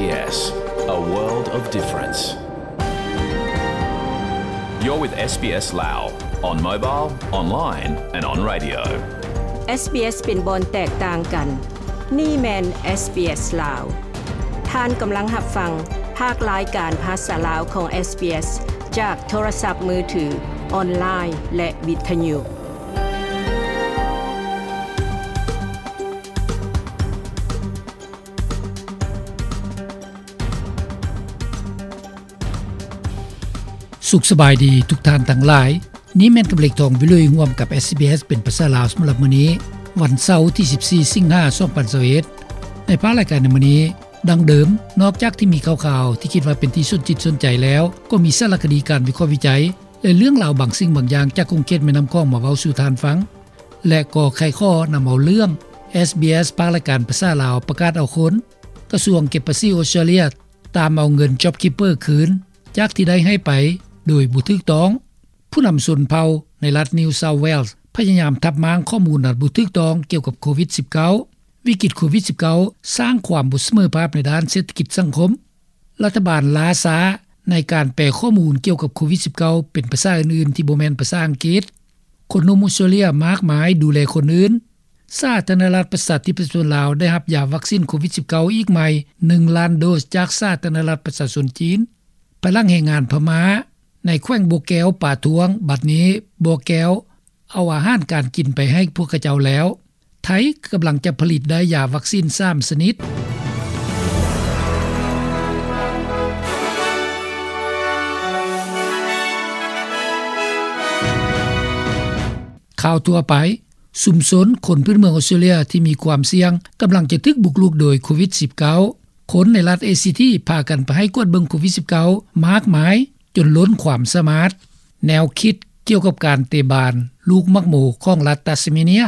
SBS, a world of difference. You're with SBS Lao on mobile, online and on radio. SBS ເປັນບ່ອນແຕກຕ່າງກັນ. ນີ້ແມ່ນ SBS ລາວ. ທ່ານກຳລັງຮັບຟັງພາກລາຍການພາສາລາວຂອງ SBS ຈາກໂທລະສັບມືຖື, ອອນລາຍ ແລະ ວິທະຍຸ. ສຸກສະບາຍດີທຸກທ່ານທັງຫຼາຍ. ນີ້ແມ່ນກຳເລັກທອງ ວິລຸຍ ຮ່ວມກັບ SBS ເປັນພາສາລາວ ສຳລັບມື້ນີ້ ວັນເສົາ ທີສິບສີ່ ສິງຫາ ສອງພັນຊາວເອັດ. ໃນພາກລາຍການໃນມື້ນີ້, ດັ່ງເດີມ, ນອກຈາກທີ່ມີຂ່າວໆທີ່ຄິດວ່າເປັນທີ່ສົນຈິດສົນໃຈແລ້ວ, ກໍມີສາລະຄະດີການວິເຄາະວິໄຈ ແລະ ເລື່ອງລາວບາງສິ່ງບາງຢ່າງຈາກຂົງເຂດແມ່ນ້ຳຂອງມາເວົ້າສູ່ທ່ານຟັງ ແລະ ກໍໄຂຂໍ້ນຳເອົາເລື່ອງ SBS ພາກລາຍການພາສາລາວປະກາດເອົາຄົນ, ກະຊວງເກັບພາສີອົດສະຕຣາເລຍຕາມເອົາເງິນ JobKeeper ຄືນ ຈາກທີ່ໄດ້ໃຫ້ໄປໂດຍບໍ່ຖືກຕ້ອງ, ຜູ້ນຳຊົນເຜົ່າໃນລັດ New South Wales ພະຍາຍາມທັບມ້າງຂໍ້ມູນອັນບໍ່ຖືກຕ້ອງກ່ຽວກັບໂຄວິດສິບເກົ້າ, ວິກິດໂຄວິດສິບເກົ້າ ສ້າງຄວາມບໍ່ສະເໝີພາບໃນດ້ານເສດຖະກິດສັງຄົມ, ລັດຖະບານລ້າຊ້າໃນການແປຂໍ້ມູນກ່ຽວກັບໂຄວິດສິບເກົ້າ ເປັນພາສາອື່ນໆທີ່ບໍ່ແມ່ນພາສາອັງກິດ, ຄົນໜຸ່ມອົດສະຕຣາເລຍມາກມາຍດູແລຄົນອື່ນ, ສາທາລະນະລັດປະຊາທິປະໄຕປະຊາຊົນລາວໄດ້ຮັບຢາວັກຊີນໂຄວິດສິບເກົ້າອີກໃໝ່ໜຶ່ງລ້ານໂດສຈາກສາທາລະນະລັດປະຊາຊົນຈີນ, ພາຍຫຼັງແຮງງານພະມ້າໃນແຂວງບໍ່ແກ້ວປະທ້ວງ, ບັດນີ້ບໍ່ແກ້ວເອົາອາຫານການກິນໄປໃຫ້ພວກເຂົາເຈົ້າແລ້ວ. ໄທກຳລັງຈະຜະລິດໄດ້ຢາວັກຊີນສາມຊະນິດ. ຂ່າວທົ່ວໄປ. ຊຸມຊົນຄົນພື້ນເມືອງອົດສະຕຣາເລຍທີ່ມີຄວາມສ່ຽງກຳລັງຈະຖືກບຸກລຸກໂດຍໂຄວິດສິບເກົ້າ. ຄົນໃນລັດ ACT ພາກັນໄປໃຫ້ກວດເບິ່ງໂຄວິດສິບເກົ້າມາກມາຍຈົນລົ້ນຄວາມສາມາດ. ແນວຄິດກ່ຽວກັບການເຕະບານລູກໝາກໂມຂອງລັດ Tasmania.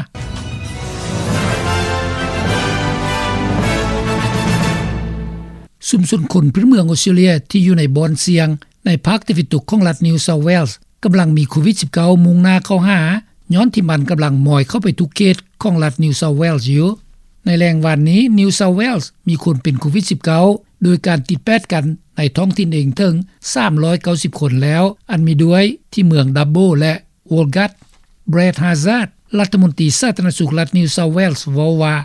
ຊຸມຊົນຄົນພື້ນເມືອງອົດສະຕຣາເລຍທີ່ຢູ່ໃນບ່ອນສ່ຽງໃນພາກຕາເວັນຕົກຂອງລັດ New South Wales ກຳລັງມີໂຄວິດສິບເກົ້າມຸ່ງໜ້າເຂົ້າຫາ ຍ້ອນທີ່ມັນກຳລັງມອຍເຂົ້າໄປທຸກເຂດຂອງລັດ New South Wales ຢູ່. ໃນແລງວານນີ້ New South Wales ມີຄົນເປັນໂຄວິດສິບເກົ້າ ໂດຍການຕິດແປດກັນໃນທ້ອງຖິ່ນເອງເຖິງສາມຮ້ອຍເກົ້າສິບຄົນແລ້ວ, ອັນມີດ້ວຍທີ່ເມືອງ Dubbo ແລະ Walgett. Brad Hazzard ລັດຖະມົນຕີສາທາລະນະສຸກລັດ New South Wales ເວົ້າວ່າ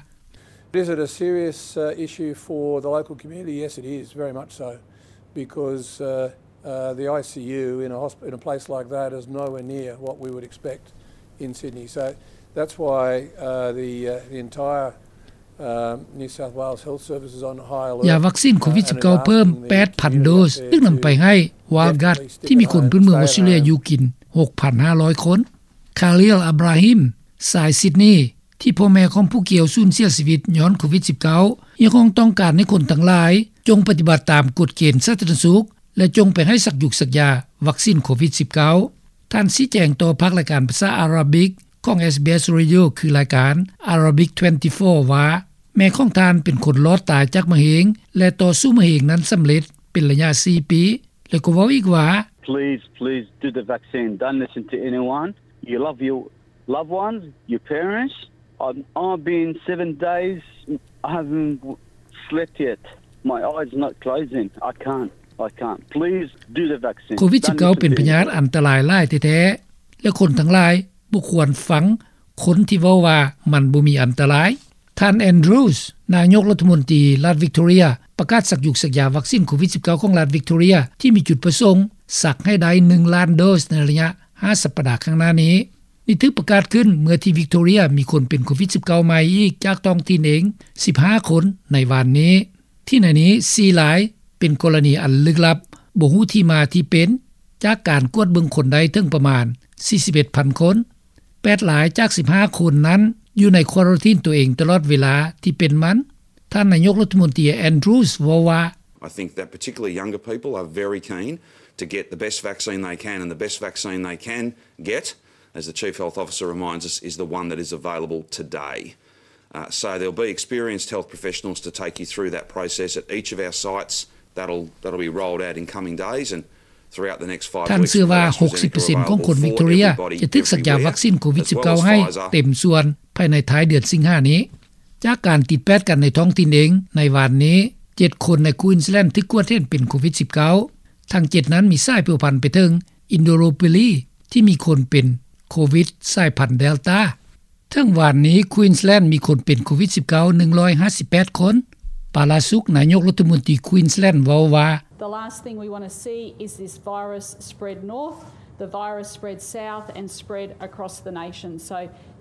Is it a serious, uh, issue for the local community? Yes, it is, very much so, because, uh, uh, the ICU in a hosp-, in a place like that is nowhere near what we would expect in Sydney. So that's why, uh, the, uh, the entire, uh, New South Wales Health Service is on high alert. ຢາວັກຊີນໂຄວິດສິບເກົ້າເພີ່ມແປດພັນໂດສ ຖືກນຳໄປໃຫ້ Walgett ທີ່ມີຄົນພື້ນເມືອງອົດສະຕຣາເລຍຢູ່ກິນຫົກພັນຫ້າຮ້ອຍຄົນ. Khalil Ibrahim ຊາວ Sydney ທີ່ພໍ່ແມ່ຂອງຜູ້ກ່ຽວສູນເສຍຊີວິດຍ້ອນໂຄວິດສິບເກົ້າ ຮຽກຮ້ອງຕ້ອງການໃຫ້ຄົນທັງຫຼາຍຈົ່ງປະຕິບັດຕາມກົດເກນສາທາລະນະສຸກ ແລະ ຈົ່ງໄປໃຫ້ສັກຢູກສັກຢາວັກຊີນໂຄວິດສິບເກົ້າ. ທ່ານຊີ້ແຈງຕໍ່ພາກລາຍການພາສາອາຣາບິກຂອງ SBS Radio ຄືລາຍການ Arabic twenty-four ວ່າ ແມ່ຂອງທ່ານເປັນຄົນລອດຕາຍຈາກມະເຮັງ ແລະ ຕໍ່ສູ້ມະເຮັງນັ້ນສຳເລັດເປັນໄລຍະສີ່ປີ ແລະ ກໍເວົ້າອີກວ່າ Please, please do the vaccine. Don't listen to anyone. You love your loved ones, your parents. I've, I've been seven days, I haven't slept yet. My eyes not closing. I can't, I can't. Please do the vaccine. ໂຄວິດສິບເກົ້າເປັນພະຍາດອັນຕະລາຍຫຼາຍແທ້ໆ ແລະ ຄົນທັງຫຼາຍບໍ່ຄວນຟັງຄົນທີ່ເວົ້າວ່າມັນບໍ່ມີອັນຕະລາຍ. ທ່ານ Andrews ນາຍົກລັດຖະມົນຕີລັດ Victoria ປະກາດສັກຍຸກສັກຢາວັກຊີນໂຄວິດສິບເກົ້າຂອງລັດ Victoria ທີ່ມີຈຸດປະສົງສັກໃຫ້ໄດ້ໜຶ່ງລ້ານໂດສໃນໄລຍະຫ້າສັບປະດາຂ້າງໜ້ານີ້. ນີ້ຖືກປະກາດຂຶ້ນເມື່ອທີ່ Victoria ມີຄົນເປັນໂຄວິດສິບເກົ້າໃໝ່ອີກຈາກທ້ອງຖິ່ນເອງສິບຫ້າຄົນໃນວານນີ້. ທີ່ໃນນີ້ສີ່ລາຍເປັນກໍລະນີອັນລຶກລັບ ບໍ່ຮູ້ທີ່ມາທີ່ເປັນ ຈາກການກວດເບິ່ງຄົນໄດ້ເຖິງປະມານສີ່ສິບເອັດພັນຄົນ. ແປດລາຍຈາກສິບຫ້າຄົນນັ້ນຢູ່ໃນຄວາຣັນທີນຕົວເອງຕະຫຼອດເວລາທີ່ເປັນມັນ. ທ່ານນາຍົກລັດຖະມົນຕີ Andrews ເວົ້າວ່າ I think that particularly younger people are very keen to get the best vaccine they can, and the best vaccine they can get, as the Chief Health Officer reminds us, is the one that is available today. Uh, so there'll be experienced health professionals to take you through that process at each of our sites. That'll, that'll be rolled out in coming days and throughout the next five weeks. ທ່ານເຊື່ອວ່າ ຫົກສິບເປີເຊັນຂອງຄົນ Victoria ຈະຖືກສັກຢາວັກຊີນໂຄວິດສິບເກົ້າໃຫ້ເຕັມສ່ວນພາຍໃນທ້າຍເດືອນສິງຫານີ້. ຈາກການຕິດແປດກັນໃນທ້ອງຖິ່ນເອງໃນວານນີ້, ເຈັດຄົນໃນ Queensland ຖືກກວດເຫັນເປັນໂຄວິດ-19. ທັງເຈັດນັ້ນມີສາຍພົວພັນໄປເຖິງ Indooroopilly ທີ່ມີຄົນເປັນໂຄວິດສາຍພັນ Delta. ເຖິງວານນີ້ Queensland ມີຄົນເປັນໂຄວິດ-19 ໜຶ່ງຮ້ອຍຫ້າສິບແປດຄົນ. Pala Suk ນາຍົກລັດຖະມົນຕີ Queensland ເວົ້າວ່າ The last thing we want to see is this virus spread north, the virus spread south and spread across the nation. So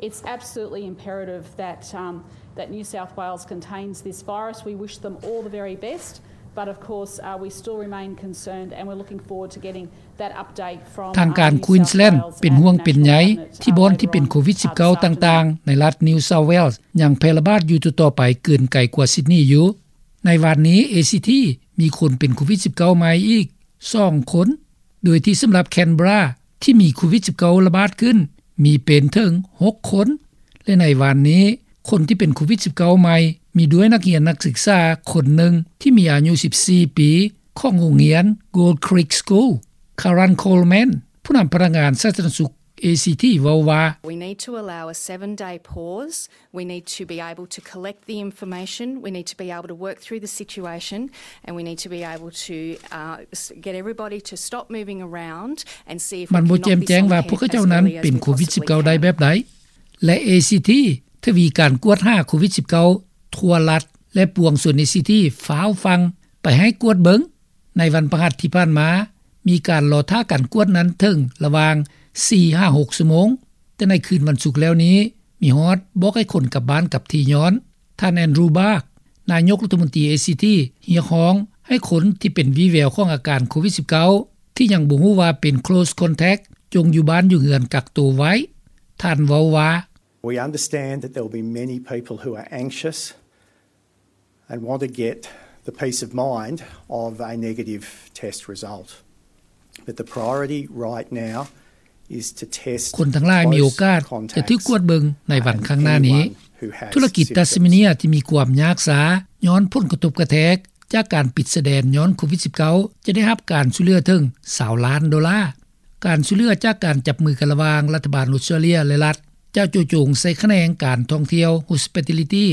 it's absolutely imperative that, um, that New South Wales contains this virus. We wish them all the very best, but of course, uh, we still remain concerned and we're looking forward to getting that update from, uh, New South Wales and the National Government, uh, later on, uh, this afternoon. ທາງການ Queensland ເປັນຫ່ວງເປັນໃຍທີ່ບ່ອນທີ່ເປັນໂຄວິດ-19 ຕ່າງໆ ໃນລັດ New South Wales ຍັງແຜ່ລະບາດຢູ່ຕໍ່ໆໄປເກີນໄກກວ່າ Sydney ຢູ່. ໃນວານນີ້ ເອຊີທີ ມີຄົນເປັນໂຄວິດ-19 ໃໝ່ອີກສອງຄົນ ໂດຍທີ່ສຳລັບ Canberra ທີ່ມີໂຄວິດ-19 ລະບາດຂຶ້ນ ມີເປັນເຖິງຫົກຄົນ ແລະ ໃນວານນີ້ ຄົນທີ່ເປັນໂຄວິດ-19 ໃໝ່ ມີດ້ວຍນັກຮຽນນັກສຶກສາຄົນໜຶ່ງທີ່ມີອາຍຸສິບສີ່ປີ ຂອງໂຮງຮຽນ Gold Creek School. Karen Coleman ຜູ້ນຳພະນັກງານສາທາລະນະສຸກ ເອຊີທີ ເວົ້າວ່າ We need to allow a seven-day pause. We need to be able to collect the information. We need to be able to work through the situation, and we need to be able to, uh, s-, get everybody to stop moving around and see if we can knock this on the head as early as we possibly can. ມັນບໍ່ແຈ່ມແຈ້ງວ່າພວກເຂົາເຈົ້ານັ້ນເປັນໂຄວິດ-19 ໄດ້ແບບໃດ ແລະ ເອຊີທີ ທະວີການກວດຫາໂຄວິດ-19 ທົ່ວລັດ ແລະ ປວງຊົນ ເອຊີທີ ຟ້າວຟັ່ງໄປໃຫ້ກວດເບິ່ງ. ໃນວັນພະຫັດທີ່ຜ່ານມາ ມີການລໍຖ້າການກວດນັ້ນເຖິງລະຫວ່າງສີ່ຫາຫົກຊົ່ວໂມງ, ແຕ່ໃນຄືນວັນສຸກແລ້ວນີ້ ມີຮອດບອກໃຫ້ຄົນກັບບ້ານກັບທີ່ຍ້ອນ. ທ່ານ Andrew Bark ນາຍົກລັດຖະມົນຕີ ເອຊີທີ ຮຽກຮ້ອງໃຫ້ຄົນທີ່ເປັນວີ່ແວວຂອງອາການໂຄວິດ-19 ທີ່ຍັງບໍ່ຮູ້ວ່າເປັນ close contact ຈົ່ງຢູ່ບ້ານຢູ່ເຮືອນກັກໂຕໄວ້. ທ່ານເວົ້າວ່າ We understand that there will be many people who are anxious and want to get the peace of mind of a negative test result. But the priority right now is to test close contacts and isolate them. ຄົນທັງຫຼາຍມີໂອກາດຈະຖືກກວດເບິ່ງໃນວັນຂ້າງໜ້ານີ້. ທຸລະກິດ Tasmania ທີ່ມີຄວາມຍາກຊ້າຍ້ອນຜົນກະທົບກະແທກຈາກການປິດຊາຍແດນຍ້ອນໂຄວິດ-19 ຈະໄດ້ຮັບການຊ່ວຍເຫຼືອເຖິງຊາວລ້ານໂດລາ. ການຊ່ວຍເຫຼືອຈາກການຈັບມືກັນລະຫວ່າງລັດຖະບານອົດສະຕຣາເລຍ ແລະ ລັດ ຈະໂຈະຈົງໃສ່ຂະແໜງການທ່ອງທ່ຽວ Hospitality,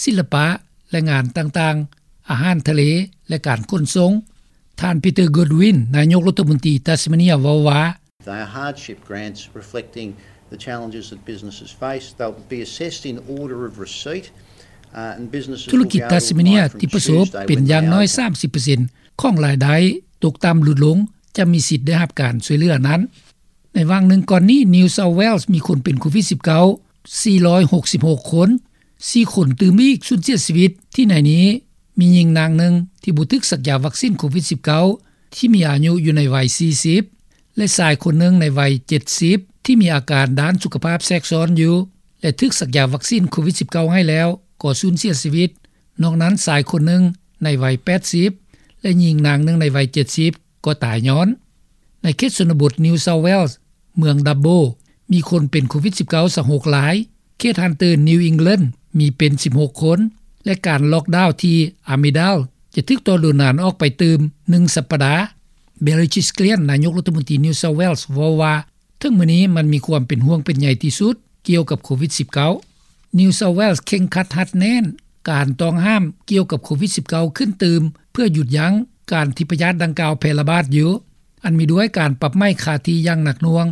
ສິລະປະ ແລະ ງານຕ່າງໆ, ອາຫານທະເລ ແລະ ການຂົນສົ່ງ. ທ່ານ Peter Godwin ນາຍົກລັດຖະມົນຕີ Tasmania ເວົ້າວ່າ They are hardship grants reflecting the challenges that businesses face. They'll be assessed in order of receipt, uh, and businesses will be able to apply from Tuesday when they open. ທຸລະກິດ Tasmania ທີ່ປະສົບເປັນຢ່າງໜ້ອຍສາມສິບເປີເຊັນຂອງລາຍໄດ້ຕົກຕ່ຳຫຼຸດລົງ ຈະມີສິດໄດ້ຮັບການຊ່ວຍເຫຼືອນັ້ນ. ໃນຫວ່າງໜຶ່ງກ່ອນນີ້ New South Wales ມີຄົນເປັນໂຄວິດ-19 ສີ່ຮ້ອຍຫົກສິບຫົກຄົນ, ສີ່ຄົນຕື່ມອີກສູນເສຍຊີວິດ, ທີ່ໃນນີ້ມີຍິງນາງໜຶ່ງທີ່ບໍ່ຖືກສັກຢາວັກຊິນໂຄວິດ-19 ທີ່ມີອາຍຸຢູ່ໃນໄວສີ່ສິບ ແລະ ຊາຍຄົນໜຶ່ງໃນໄວເຈັດສິບ ທີ່ມີອາການດ້ານສຸຂະພາບແຊກຊ້ອນຢູ່ ແລະ ຖືກສັກຢາວັກຊິນໂຄວິດ-19 ໃຫ້ແລ້ວກໍສູນເສຍຊີວິດ. ນອກນັ້ນ ຊາຍຄົນໜຶ່ງໃນໄວແປດສິບ ແລະ ຍິງນາງໜຶ່ງໃນໄວເຈັດສິບ ກໍຕາຍຍ້ອນ. ໃນເຂດຊົນນະບົດ New South Wales ເມືອງ Dubbo ມີຄົນເປັນໂຄວິດ-19 ຊາວຫົກລາຍ, ເຂດ Hunter New England ມີເປັນສິບຫົກຄົນ ແລະ ການລ໊ອກດາວທີ່ Armidale ຈະຖືກຕໍ່ໂດນນານອອກໄປຕື່ມໜຶ່ງສັບປະດາ. Billy Gillies ນາຍົກລັດຖະມົນຕີ New South Wales ເວົ້າວ່າ ເຖິງມື້ນີ້ມັນມີຄວາມເປັນຫ່ວງເປັນໃຍທີ່ສຸດກ່ຽວກັບໂຄວິດ-19. New South Wales ເຄັ່ງຄັດຮັດແໜ້ນການຕ້ອງຫ້າມກ່ຽວກັບໂຄວິດ-19 ຂຶ້ນຕື່ມ ເພື່ອຢຸດຢັ້ງການທີ່ພະຍາດດັ່ງກ່າວແຜ່ລະບາດຢູ່, ອັນມີດ້ວຍການປັບໃໝຄ່າທີ່ຢ່າງໜັກໜ່ວງ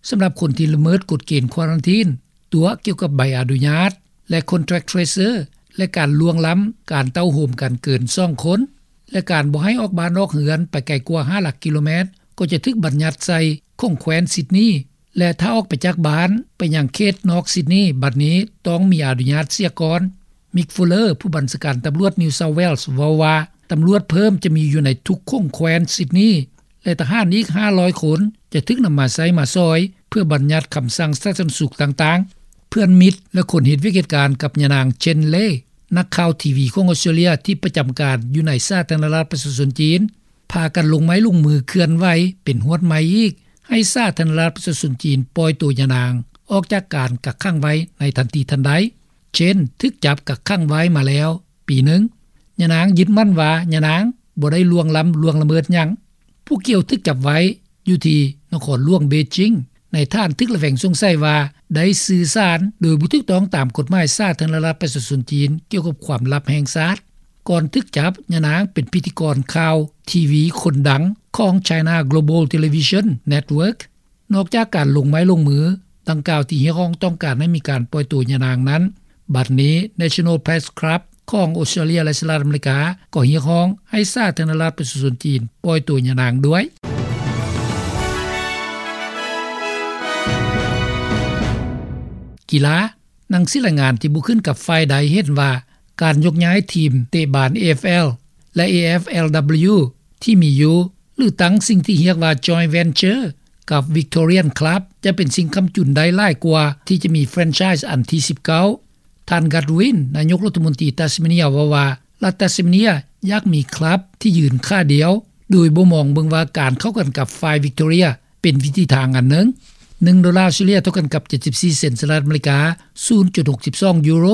ສຳລັບຄົນທີ່ລະເມີດກົດເກນຄວາຣັນທີນ, ຕົວະກ່ຽວກັບໃບອະນຸຍາດ ແລະ contact tracer ແລະ ການລ່ວງລ້ຳການເຕົ້າໂຮມກັນເກີນສອງຄົນ ແລະ ການບໍ່ໃຫ້ອອກບ້ານອອກເຮືອນໄປໄກກວ່າຫ້າຫຼັກກິໂລແມັດ ກໍຈະຖືກບັນຍັດໃສ່ຂອງແຂວນ Sydney ແລະ ຖ້າອອກໄປຈາກບ້ານໄປຍັງເຂດນອກ Sydney ບັດນີ້ຕ້ອງມີອະນຸຍາດເສຍກ່ອນ. Mick Fuller ຜູ້ບັນຊາການຕຳຫຼວດ New South Wales ເວົ້າວ່າ ຕຳຫຼວດເພີ່ມຈະມີຢູ່ໃນທຸກຂົງແຂວນ Sydney ແລະ ທະຫານອີກຫ້າຮ້ອຍຄົນຈະຖືກນຳມາໃຊ້ມາຊ່ອຍ ເພື່ອບັນຍັດຄຳສັ່ງສາທາລະນະສຸກຕ່າງໆ. ເພື່ອນມິດ ແລະ ຄົນເຮັດວຽກເຮັດການກັບຍານາງ Chen Lei ນັກຂ່າວທີວີຂອງອອສເຕຣເລຍທີ່ປະຈຳການຢູ່ໃນສາທາລະນະລັດປະຊາຊົນຈີນ ພາກັນລົງໄມ້ລົງມືເຄື່ອນໄຫວເປັນຫວດໃໝ່ອີກ ໃຫ້ສາທາລະນະລັດປະຊາຊົນຈີນປ່ອຍໂຕຍານາງອອກຈາກການກັກຂັງໄວ້ໃນທັນທີທັນໃດ. Chen ຖືກຈັບກັກຂັງໄວ້ມາແລ້ວປີໜຶ່ງ. ຍານາງຍຶດໝັ້ນວ່າຍານາງບໍ່ໄດ້ລ່ວງລ້ຳລ່ວງລະເມີດຫຍັງ. ຜູ້ກ່ຽວຖືກຈັບໄວ້ຢູ່ທີ່ນະຄອນຫຼວງເບຈິງ ໃນຖານຖືກລະແວງສົງໄສວ່າໄດ້ສື່ສານໂດຍບໍ່ຖືກຕ້ອງຕາມກົດໝາຍສາທາລະນະລັດປະຊາຊົນຈີນກ່ຽວກັບຄວາມລັບແຫ່ງຊາດ. ກ່ອນຖືກຈັບ ຍານາງເປັນພິທີກອນຂ່າວ ທີວີຄົນດັງ ຂອງ China Global Television Network. ນອກຈາກການລົງໄມ້ລົງມື ດັ່ງກ່າວທີ່ຮຽກຮ້ອງຕ້ອງການໃຫ້ມີການປ່ອຍໂຕຍານາງນັ້ນ, ບັດນີ້ National Press Club ຂອງອົດສະຕຣາເລຍ ແລະ ສະຫະລັດອາເມລິກາ ກໍຮຽກຮ້ອງໃຫ້ສາທາລະນະລັດປະຊາຊົນຈີນ ປ່ອຍໂຕຍານາງດ້ວຍ. ກິລາ. ໜັງສືລາຍງານທີ່ບໍ່ຂຶ້ນກັບຝ່າຍໃດເຫັນວ່າ ການຍົກຍ້າຍທີມເຕະບານ AFL ແລະ AFLW ທີ່ມີຢູ່ ຫຼື ຕັ້ງສິ່ງທີ່ຮຽກວ່າ Joint Venture ກັບ Victorian Club ຈະເປັນສິ່ງຄ້ຳຈຸນໄດ້ຫຼາຍກວ່າທີ່ຈະມີ franchise ອັນທີສິບເກົ້າ. ທ່ານ Godwin ນາຍົກລັດຖະມົນຕີ Tasmania ເວົ້າວ່າ ລັດ Tasmania ຢາກມີ club ທີ່ຢືນຂາດຽວ ໂດຍບໍ່ມອງເບິ່ງວ່າການເຂົ້າກັນກັບຝ່າຍ Victoria ເປັນວິທີທາງອັນໜຶ່ງ. ໜຶ່ງໂດລາອົດສະຕຣາເລຍເທົ່າກັນກັບ ເຈັດສິບສີ່ເຊັນສະຫະລັດອາເມລິກາ, ສູນຈຸດຫົກສິບສອງຢູໂຣ,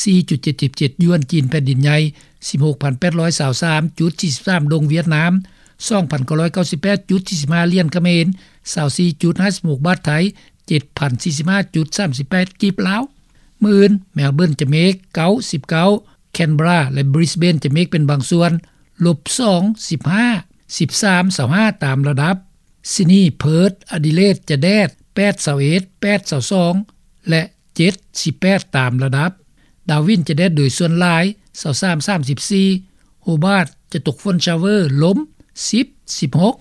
ສີ່ຈຸດເຈັດສິບເຈັດຢວນຈີນແຜ່ນດິນໃຫຍ່, ສິບຫົກພັນແປດຮ້ອຍຊາວສາມຈຸດສີ່ສິບສາມດົງຫວຽດນາມ, ສອງພັນເກົ້າຮ້ອຍເກົ້າສິບແປດຈຸດສີ່ສິບຫ້າຫຼຽນຂະເໝນ, ຊາວສີ່ຈຸດຫ້າສິບຫົກບາດໄທ, ເຈັດພັນສີ່ສິບຫ້າຈຸດສາມສິບແປດກີບລາວ. ມື້ອື່ນ Melbourne ຈະເມກ ເກົ້າສິບເກົ້າ, Canberra ແລະ Brisbane ຈະເມກເປັນບາງສ່ວນ ລົບສອງສິບຫ້າ, ສິບສາມຊາວຫ້າຕາມລະດັບ. Sydney, Perth, Adelaide ຈະແດດ ແປດຊາວເອັດ, ແປດຊາວສອງ ແລະ ເຈັດສິບແປດຕາມລະດັບ. Darwin ຈະແດດໂດຍສ່ວນຫຼາຍ ຊາວສາມສາມສິບສີ່, Hobart ຈະຕົກຝົນ shower ລົມ ສິບສິບຫົກ.